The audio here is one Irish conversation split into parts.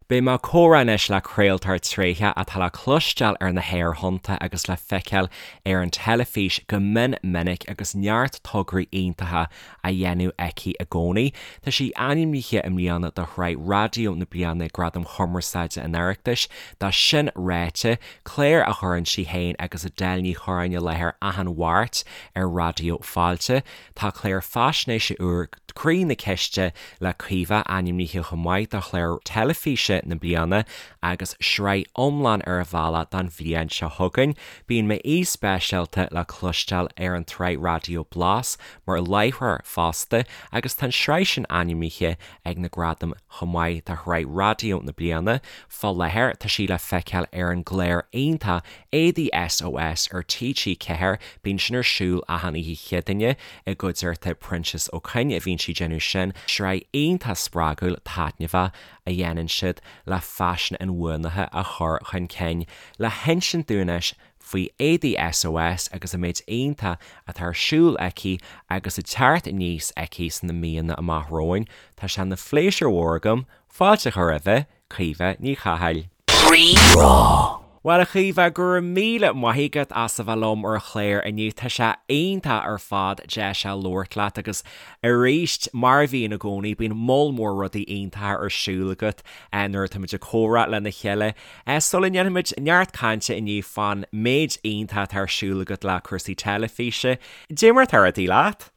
Beidh mé ag comhrá anois le craoltóir tréitheach atá le cloisteáil ar na haerthonnta agus le feiceáil ar an teilifís go mion minic agus neart tograí iontacha á dhéanamh aici i gcónaí. Tá sí ainmnithe i mbliana do Shraith Raidió na Bliana ag Gradaim Chumarsáide an Oireachtais. Do Sin Ráite, clár a chuireann sí féin agus Edel Ní Chorráin i láthair achan Mháirt ar Raidió Fáilte. Tá clár faisnéise úr Croí na Ciste le Caoimhe ainmnithe chomh maith do chlár teilifíse na bliana agus sraith iomlán ar an bhealach don bhliain seo chugainn. Bíonn m'aoi speisialta le cloisteáil ar an tsraith raidió Blas mar láithreoir fosta agus tá an tsraith sin ainmnithe ag na gradaim chomh maith do shraith raidió na bliana. Fá láthair tá sí le feiceáil ar an gclár iontach Éadaí SOS ar TG4, bíonn sin ar siúl achan oíche Chéadaoine i gcuideachta Proinsias Ó Coinn a bhíonn sí ag déanamh sin, sraith iontach spreagúil taitneamhach a dhéanann siad le faisean inbhuanaithe a chur chun cinn. Le hinsint dúinn anois faoi Éadaí SOS agus an méid iontach atá ar siúl aici agus ag teacht aníos aici sna míonna amach romhainn, tá sé ina phléisiúr mhór agam fáilte a chur roimhe, Caoimhe Ní Chathail. Rí-Rá. Bhuel, a Chaoimhe, go raibh míle maith agat as a bheith liom ar an chlár inniu. Tá sé iontach ar fad deis a labhairt leat agus arís, mar a bhíonn i gcónaí, bíonn moll mór rudaí iontacha ar siúl agat nuair atáimid ag comhrá lena chéile. Sula ndéanfaimid neart cainte inniu fán méid iontach atá ar siúl agat le cúrsaí teilifíse, cad é mar atá rudaí leat?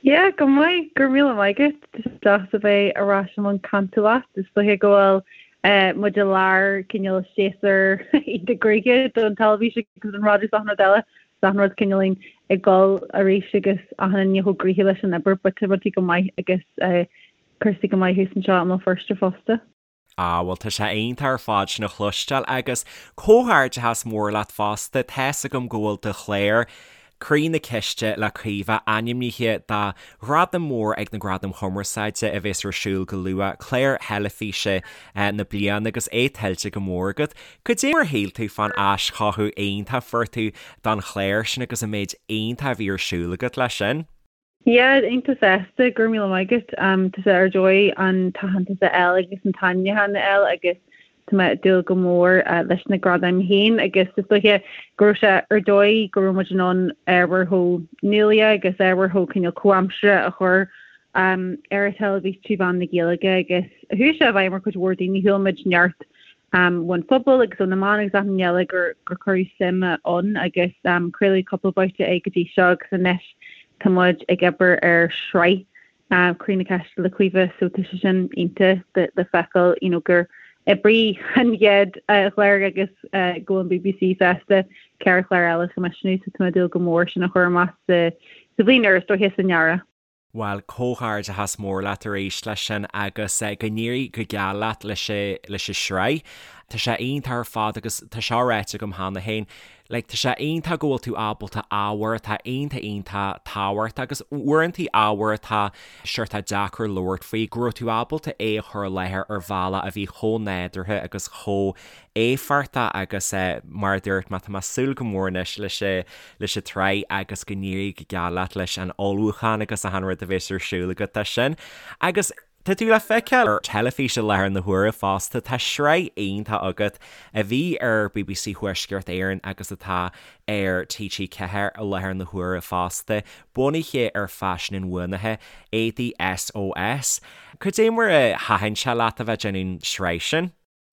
Yeah, go maith, go raibh míle maith agat. Tá sé deas a bheith ar ais i mbun cainte leat. Is dóiche go bhfuil muid i lár cineál séasúr iontach gnoitheach don teilifís agus don raidió is achan rud eile. Is achan rud cineáilín ag dul arís agus achan duine chomh gnoitheach leis an obair but tá rudaí go maith agus cúrsaí go maith thuas anseo i mBéal Feirste fosta. Ah, bhuel, tá sé iontach ar fad sin a chloisteáil agus comhghairdeachas mór leat fosta, tá's agam go bhfuil do chlár, Croí na Ciste le Caoimhe, ainmnithe do ghradam mór ag na Gradaim Chumarsáide a bhéas ar siúl go luath, Clár Theilifíse na Bliana agus é tuillte go mór agat. Cad é mar a shíl tú fán aischothú iontach a fuair tú don chlár sin agus an méid iontach a bhí ar siúl agat leis sin? Yeah, iontach sásta, go raibh míle maith agat. Tá sé ar dóigh an t-aitheantas a fháil agus an t-ainmniúchán a fháil agus tá mé ag dúil go mór leis na gradaim féin agus is dóiche go raibh sé ar dóigh go raibh muid in ann ábhar chomh nuálaíoch agus ábhar chomh cineál comhaimseartha a chur ar an teilifís trí mheán na Gaeilge agus chuaigh sé i bhfeidhm ar chuid mhór daoine, chuala muid neart ón phobal agus ó na meáin agus achan rud eile gur gur cuireadh suim ann agus craoladh cúpla babhta é go dtí seo agus anois tá muid ag obair ar shraith Croí na Ceiste le Caoimhe so tá sé sin iontach le feiceáil you know gur oibrigh an chéad chlár agus go bhfuil an BBC sásta ceithre chlár eile a choimisiúnú so tá mé ag dúil go mór sin a chur amach sa bhliain úr is dóiche san earrach. Bhuel, comhghairdeachas mór leat arís leis sin agus go n-éirí go geal leat leis leis an sraith. Tá sé iontach ar fad agus tá seo ráite agam cheana féin, like tá sé iontach go bhfuil tú ábalta ábhar atá iontach iontach tábhachtach agus uaireantaí ábhar atá seort deacair labhairt faoi, go raibh tú ábalta é a chur i láthair ar bhealach a bhí chomh nádúrtha agus chomh éifeachtach agus mar a dúirt mé, tá mé ag súil go mór anois leis leis an tsraith agus go n-éirí go geal leat leis an ullmhúchán agus achan rud a bheas ar siúl agat dó sin. Agus tá tú le feiceáil ar teilifís i láthair na huaire fosta, tá sraith iontach agat a bhí ar bbc Thuaisceart Éireann agus atá ar TG4 i láthair na huaire fosta, bunaithe ar faisean inbhuanaithe, Éadaí SOS. Cad é mar a thaitin sé leat a bheith ag déanamh an sraith sin?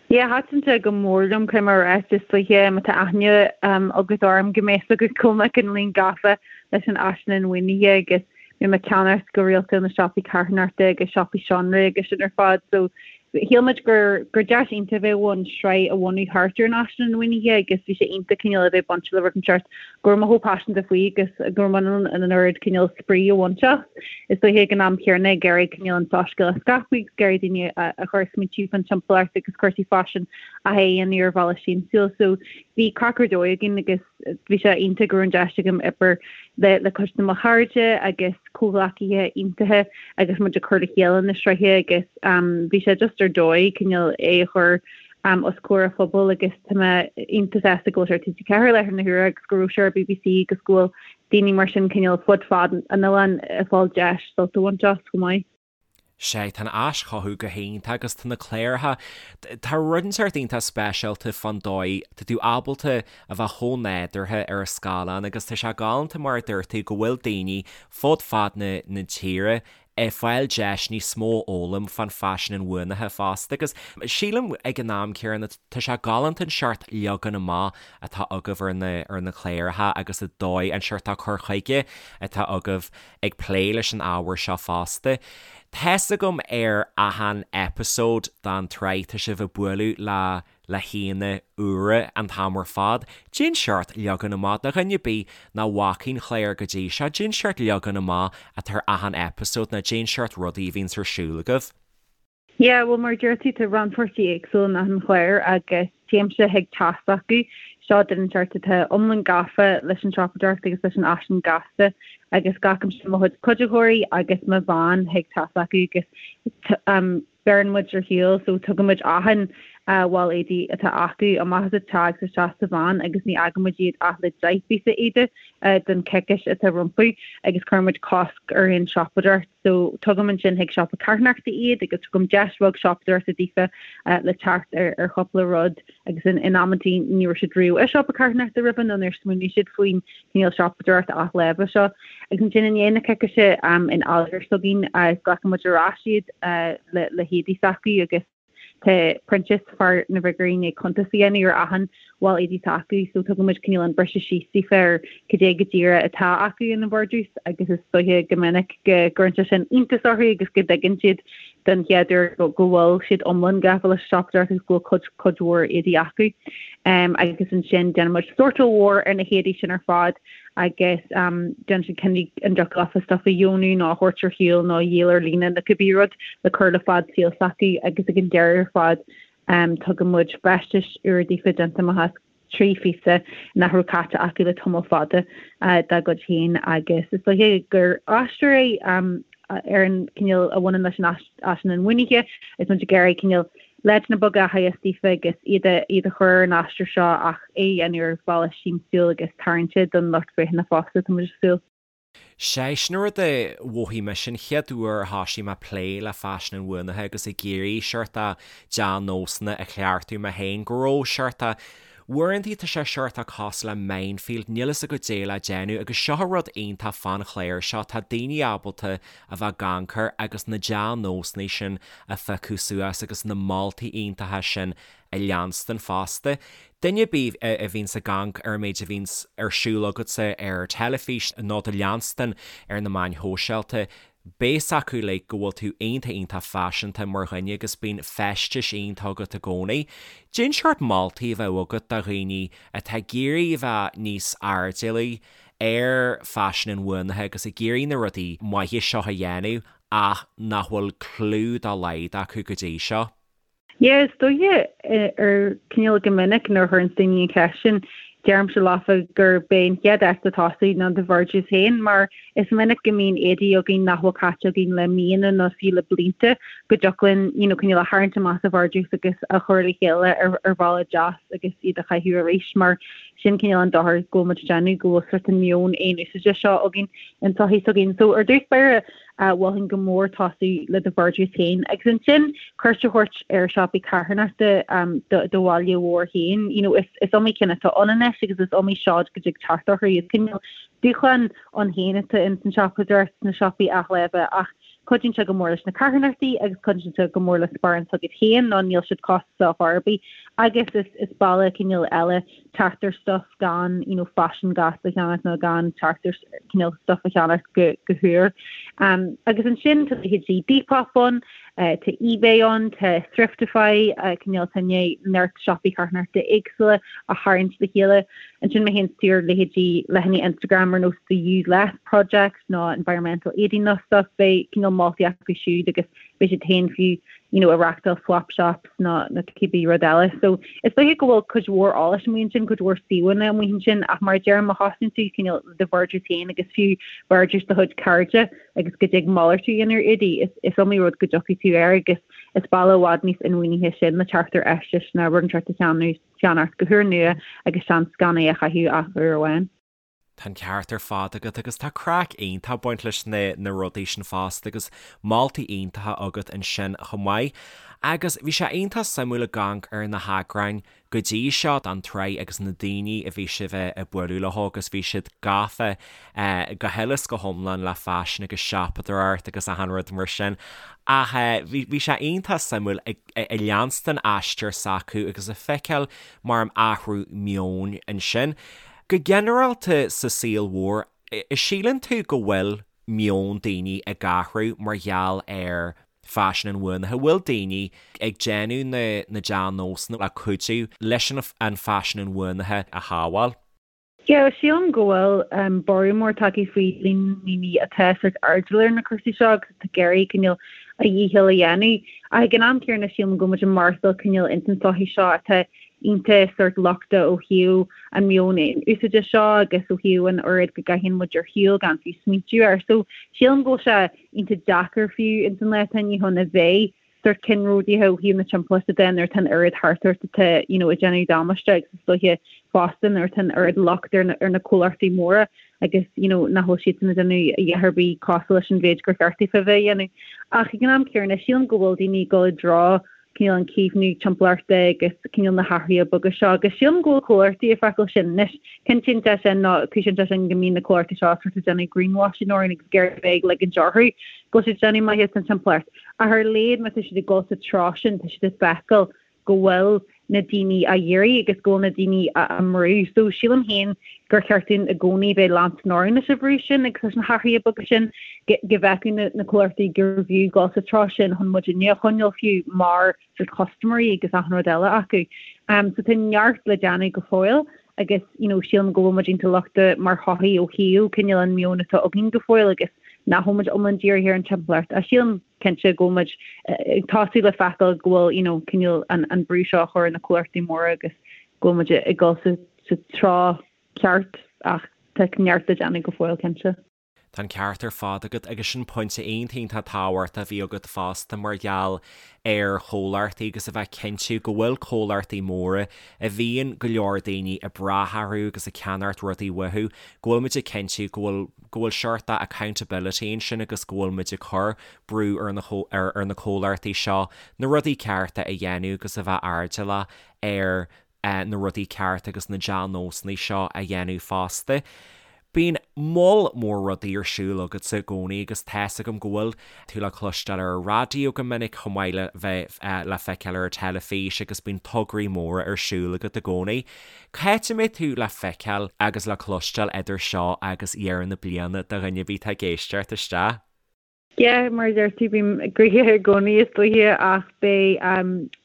Yeah, thaitin sé go mór liom, caithfidh mé a rá, is dóiche má tá aithne agat orm go mbeidh a fhios agat go bhfuil mé cineáilín gafa leis an fhaisean inbhuanaithe agus bíonn mé ag ceannacht go rialta ó na siopaí carthanachta agus siopaí seanré agus sin ar fad so shíl muid gur gur deis iontach a bheadh ann sraith a bhunú thart ar an fhaisean inbhuanaithe agus bhí sé iontach cineál a bheith bainte le rud inteacht go raibh mé chomh paiseanta faoi agus go raibh mé in ann an oiread cineál spraoi a bhaint as. Is dóiche ag an am chéanna ag iarraidh cineál an soiscéal a scaipeadh agus ag iarraidh daoine a chur ag smaointiú fán timpeallacht agus cúrsaí faisin a dhéanamh ar bhealach siamsúil. So bhí craic ar dóigh againn agus bhí sé iontach go raibh an deis agam obair le le cuid de mo chairde agus comhghleacaithe iontacha agus muid ag cur le chéile na sraithe agus bhí sé just ar dóigh cineál é a chur os comhair an phobail agus tá mé iontach sásta go bhfuil sé ar TG4 i láthair na huaire agus go raibh sé ar BBC agus go bhfuil daoine mar sin cineál fud fad an oileáin ag fáil deis sult a bhaint as chomh maith. Sea, tá an aischothú go hiontach agus tá na cláracha, tá rud inteacht iontach speisialta fán dóigh, tá tú ábalta a bheith chomh nádúrtha ar an scáileán agus tá sé galánta mar a dúirt tú go bhfuil daoine fud fad na na tíre ag fáil deis níos mó a fhoghlaim fán faisean inbhuanaithe fosta agus sílim ag an am céanna tá sé galánta an seort leagan amach atá agaibh ar na ar na cláracha agus an dóigh an seort cur chuige atá agaibh ag plé leis an ábhar seo fosta. Tá's agam ar achan eipeasóid den tsraith tá sibh ag bualadh le le haíonna úra an t-am ar fad. Cén seort leagan amach, do dhuine ar bith nach bhfaca an clár go dtí seo, cén seort leagan amach atá ar achan eipeasóid nó cén seort rudaí a bhíonns ar siúl agaibh. Yeah, bhuel mar a deir tú, tá rannpháirtí éagsúil in achan chlár agus téimse chuig teach s'acu. Seo duine inteacht atá iomlán gafa leis an siopadóireacht agus leis an fhaisean gasta agus glacaimse mo chuid cuiditheoirí agus mo veain chuig teach s'acu agus beireann muid ar shiúl so tugann muid achan bhall éadaí atá acu amach as an teach agus isteach sa veain agus ní fhágann muid iad ach le 10 bpíosa éadaigh don choicís atá rompu agus cuireann muid cosc ar aon siopadóireacht so tugaim ansin chuig siopa carthanachta iad agus tugaim deis bheag siopadóireachta daofa le teacht ar ar chúpla rud agus in in amantaí ní raibh siad riamh i siopa carthanachta roimhe nó níor smaoinigh siad faoin cineál siopadóireacht athláimhe seo. Agus ansin i ndiaidh na coicíse in áiléar s'againn glacann muid ar ais iad le le héadaí s'acu agus tá Proinsias, fear na bhfigiúirí, i ndiaidh cuntas a dhéanamh ar achan bhall éadaí atá acu so tugann muid cineál an briseadh síos daofa ar cad é go díreach atá acu ina vardrús agus is dóiche go minic go gcuireann sé sin iontas orthu agus go dtuigeann siad den chéad uair go bhfuil siad iomlán gafa leis an siopadóireacht agus go bhfuil cuid cuid mhór éadaí acu. Agus ansin déanann muid sórtáil mhór ar na héadaí sin ar fad agus déanann siad cinneadh an dtiocfadh leofa stuff a dheonú nó a thabhairt ar shiúl nó a dhíol ar líne nó cibé rud le cur le fad saoil s'acu agus ag an deireadh ar fad tugann muid feistis úra daofa déanta amach as 3 phíosa nach raibh caite acu le tamall fada dá gcuid féin agus is dóiche gur aistear é ar an cineál a bhaineann leis an fhaisean inbhuanaithe is muid ag iarraidh cineál leideanna beaga a theagasc daofa agus iad a iad a chur ar an aistear seo ach é a dhéanamh ar bhealach siamsúil agus tarraingteach don lucht féachana fosta, tá muid ag súil. Sea, sin an rud a mhothaigh mise an chéad uair a thoisigh mé plé le faisean inbhuanaithe agus ag iarraidh seort de dea-nósanna a chleachtadh mé féin, go raibh seort de, uaireantaí tá sé seort de cosúil le minefield, níl fhios agat caidé le déanamh agus seo an rud iontach fán chlár seo, tá daoine ábalta a bheith ag amharc agus na dea-nósanna sin a phiocadh suas agus na moltaí iontacha sin a leanstan fosta. Duine ar bith a bhíonns ag amharc ar an méid a bhíonns ar siúl agatsa ar teilifís nó do leanstan ar na meáin shóisialta, beidh fhios acu like go bhfuil tú iontach iontach faiseanta mar dhuine agus bíonn feistis iontach agat i gcónaí. Cén seort moltaí a bheadh agat do dhaoine atá ag iarraidh a bheith níos airdeallaí ar faisean inbhuanaithe agus ag iarraidh na rudaí maithe seo a dhéanamh ach nach bhfuil clue dá laghad acu go dtí seo? Yeah, is dóiche ar cineál go minic nuair a chuireann daoine an cheist sin, deirimse leofa gurb é an chéad áit le tosú ná do vardrús féin mar is minic go mbíonn éadaí againn nach bhfuil caite againn le míonna nó fiú le blianta go dtiocfadh linn you know, cineál a tharraingt amach sa vardrús agus a chur le chéile ar, ar bhealach deas agus iad a chaitheamh arís mar sin cineál an dochar go bhfuil muid ag déanamh go bhfuil sort an meon aon úsáide seo againn in sochaí s'againn. So ar dtús báire Mholfainn go mór tosú le do vardrús féin agus ansin cuairt a thabhairt ar siopaí carthanachta do bhaile mhóir féin. You know, is is iomaí ceann atá ann anois agus is iomaí seod go dtig teacht orthu. Is cineál dúshlán ann féin atá ins an siopadóireacht sna siopaí athláimhe ach cuidíonn sé go mór leis na carthanachtaí agus cuidíonn sé go mór le sparán s'agat féin nó níl siad costasach chor ar bith agus is is bealach cineál eile teacht ar stuff gan you know faisean gasta a cheannacht nó gan teacht ar cineál stuff a cheannacht go go húr. Um, agus ansin tá leithéidí Depop ann, uh, tá eBay ann, tá Thriftify, uh, cineál tá neart siopaí carthanachta éagsúla a tharraingt le chéile. Ansin má théann tú ar leithéidí leathanaigh Instagram ar nós The Use Less Project nó Environmental Éadaí nó stuff, beidh cineál moltaí acu siúd agus beidh siad féin fiú you know, ag reachtáil swap shops nó nó cibé rud eile. So is dóiche go bhfuil cuid mhór eolais amuigh ansin, cuid mhór suíomhanna amuigh ansin ach mar a deirim má thosaíonn tú cineál do vardrús féin agus fiú vardrús do chuid cairde agus go dtig malartú a dhéanamh ar éadaí, is, is iomaí rud go dtiocfaidh tú air agus is bealach i bhfad níos inbhuanaithe sin le teacht ar fheistis ná rud inteacht a cheannach go húrnua agus seans gan é a chaitheamh ach uair amháin. Tá an ceart ar fad agat agus tá craic iontach ag baint leis na na rudaí sin fosta agus moltaí iontacha agat ansin chomh maith. Agus bhí sé iontach suimiúil ag amharc ar na heagráin go dtí seo den tsraith agus na daoine a bhí sibh ag bualadh leo agus bhí siad gafa go huile is go hiomlán le faisean agus siopadóireacht agus achan rud mar sin. Ach bhí bhí sé iontach suimiúil ag ag leanstan aistear s'acu agus ag feiceáil mar an athrú meoin ansin. Go ginearálta sa saol mhór, síleann tú go bhfuil meon daoine ag athrú mar gheall ar faisean inbhuanaithe? Bhfuil daoine ag déanamh na na dea-nósanna le cuidiú leis an faisean inbhuanaithe a shábháil? Yeah, sílim go bhfuil borradh mór tagtha faoi líon na ndaoine atá sórt airdeallach ar na cúrsaí seo agus atá ag iarraidh cineál a dhícheall a dhéanamh. Ach ag an am céanna sílim go bhfuil muid ag maireachtáil cineál ins an tsochaí seo atá iontach sórt lochtach ó thaobh an meon aon-úsáide seo agus ó thaobh an oiread go gcaitheann muid ar shiúl gan fiú smaointiú air. So sílim go bhfuil sé iontach deacair fiú ins an lá atá inniu ann a bheith sórt ceannródaíoch ó thaobh na timpeallachta de nuair atá an oiread thart ort atá you know ag déanamh damáiste agus is dóiche fosta nuair atá an oiread locht ar na ar na comhlachtaí móra agus you know nach bhfuil siadsan ag déanamh a dhath ar bith cosúil leis an mhéid gur cheart daofa a bheith a dhéanamh. Ach ag an am céanna sílim go bhfuil daoine ag dul i dtreo cineál an caomhnú timpeallachta agus cineál na hathruithe beaga seo agus sílim go bhfuil comhlachtaí ag feiceáil sin anois. Cinntíonn sé sin nó cúisíonn sé sin go mbíonn na comhlachtaí seo sort ag déanamh greenwashing orainn agus ag iarraidh bheith ag ligint orthu go bhfuil siad ag déanamh maitheas don timpeallacht. Ach ar a laghad má tá siad ag dul sa treo sin tá siad ag feiceáil go bhfuil na daoine á iarraidh agus go bhfuil na daoine á mbrú. So sílim féin gur cheart dúinn i gcónaí bheith leanstan orainn leis an bhrú sin agus leis na hathruithe beaga sin go bhfeicfeadh na comhlachtaí gurbh fhiú dul sa treo sin chun muidinne a choinneáil fiú mar sort custaiméirí agus achan rud eile acu. So tá neart le déanamh go fóill agus you know sílim go bhfuil muid iontach lochtach mar shochaí ó thaobh cineál an meon atá againn go fóill agus nach bhfuil muid iomlán dírithe ar an timpeallacht. Ach sílim cinnte go bhfuil muid ag tosú le feiceáil go bhfuil you know cineál an an brú seo á chur ar na comhlachtaí móra agus go bhfuil muid ag dul sa sa treo ceart ach tá neart le déanamh go fóill cinnte. Tá an ceart ar fad agat agus sin pointe iontach iontach tábhachtach a bhí agat fosta mar gheall ar chomhlachtaí agus a bheith cinntiú go bhfuil comhlachtaí móra a bhíonn go leor daoine ag brath orthu agus ag ceannacht rudaí uathu go bhfuil muid ag cinntiú go bhfuil go bhfuil seort de accountability ansin agus go bhfuil muid ag cur brú ar na ar na comhlachtaí seo na rudaí cearta a dhéanamh agus a bheith airdeallach ar na rudaí cearta agus na dea-nósanna seo a dhéanamh fosta. Bíonn moll mór rudaí ar siúl agatsa i gcónaí agus tá's agam go bhfuil tú le cloisteáil ar an raidió go minic chomh maith le bheith le feiceáil ar an teilifís agus bíonn tograí móra ar siúl agat i gcónaí. C'áit a mbeidh tú le feiceáil agus le cloisteáil idir seo agus dheireadh na bliana do dhuine ar bith atá ag éisteacht isteach? Yeah, mar a deir tú, bím gnoitheach i gcónaí is dóiche ach beidh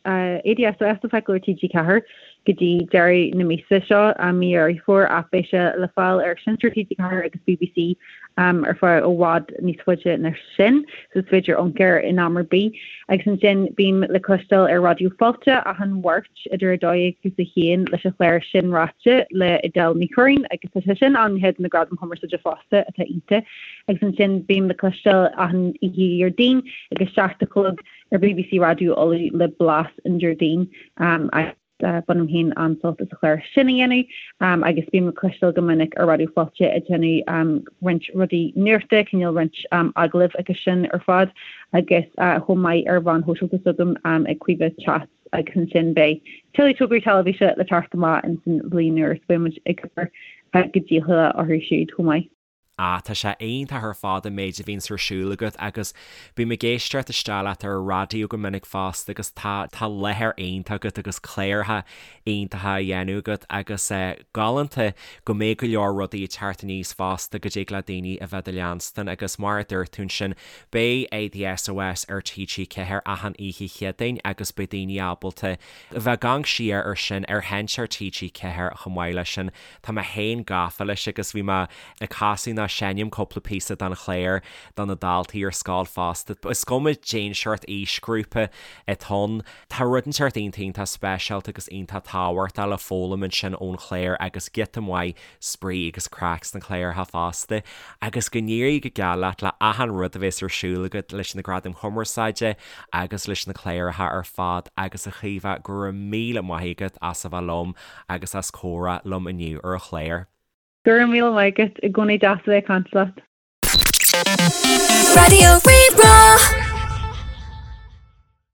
ADSOS le feiceáil ar TG4 go dtí deireadh na míosa seo, mí Dheireadh Fómhair, ach beidh sé le fáil ar Sheinnteoir TG4 agus BBC ar feadh i bhfad níos faide ná sin, so is féidir amharc air in am ar bith. Agus ansin bím le cloisteáil ar Raidió Fáilte achan Mháirt idir 12 agus 1 leis an chlár Sin Ráite le Edel Ní Churraoin agus tá sé sin ainmnithe do na Gradaim Chumarsáide fosta atá iontach. Agus ansin bím le cloisteáil achan oíche Dhéardaoin ag a 7 a chlog ar BBC Raidió Uladh le Blas an Déardaoin agus bainim féin an-sult as an chlár sin a dhéanamh agus bím le cloisteáil go minic ar Raidió Fáilte ag déanamh roinnt rudaí nuachta, cineál roinnt agallamh agus sin ar fad agus chomh maith ar mheáin shóisialta s'agam ag Caoimhe Chats agus ansin beidh tuilleadh tograí teilifíse le teacht amach ins an bhliain úr so beidh muid ag obair go dícheallach orthu siúd chomh maith. Ah, tá sé iontach ar fad an méid a bhíonns ar siúl agat agus bím ag éisteacht isteach leat ar an raidió go minic fosta agus tá, tá láthair iontach agat agus cláracha iontacha á dhéanamh agat agus eh, galánta go mbeidh go leor rudaí ag teacht aníos fosta go dtig le daoine a bheith do leanstan agus mar a dúirt tú ansin beidh ADSOS ar TG4 achan oíche Chéadaoin agus beidh daoine ábalta a bheith ag amharc siar ar sin ar sheinnteoir TG4 chomh maith leis sin. Tá mé féin gafa leis agus bhí mé ag casadh nó seinm cúpla píosa den chlár do na daltaí ar scoil fosta. Is cuma cén seort aoisghrúpa atá ann, tá rud inteacht iontach iontach speisialta agus iontach tábhachtach le foghlaim ansin ón chlár agus giota maith spraoi agus craic sna cláracha fosta. Agus go n-éirí go geal leat le achan rud a bhéas ar siúl agat leis na Gradaim Chumarsáide agus leis na cláracha ar fad agus a Chaoimhe go raibh míle maith agat as a bheith liom agus as comhrá liom inniu ar an chlár. Go raibh míle maith agat, i gcónaí deas a bheith ag caint leat. Raidió Rí-Rá.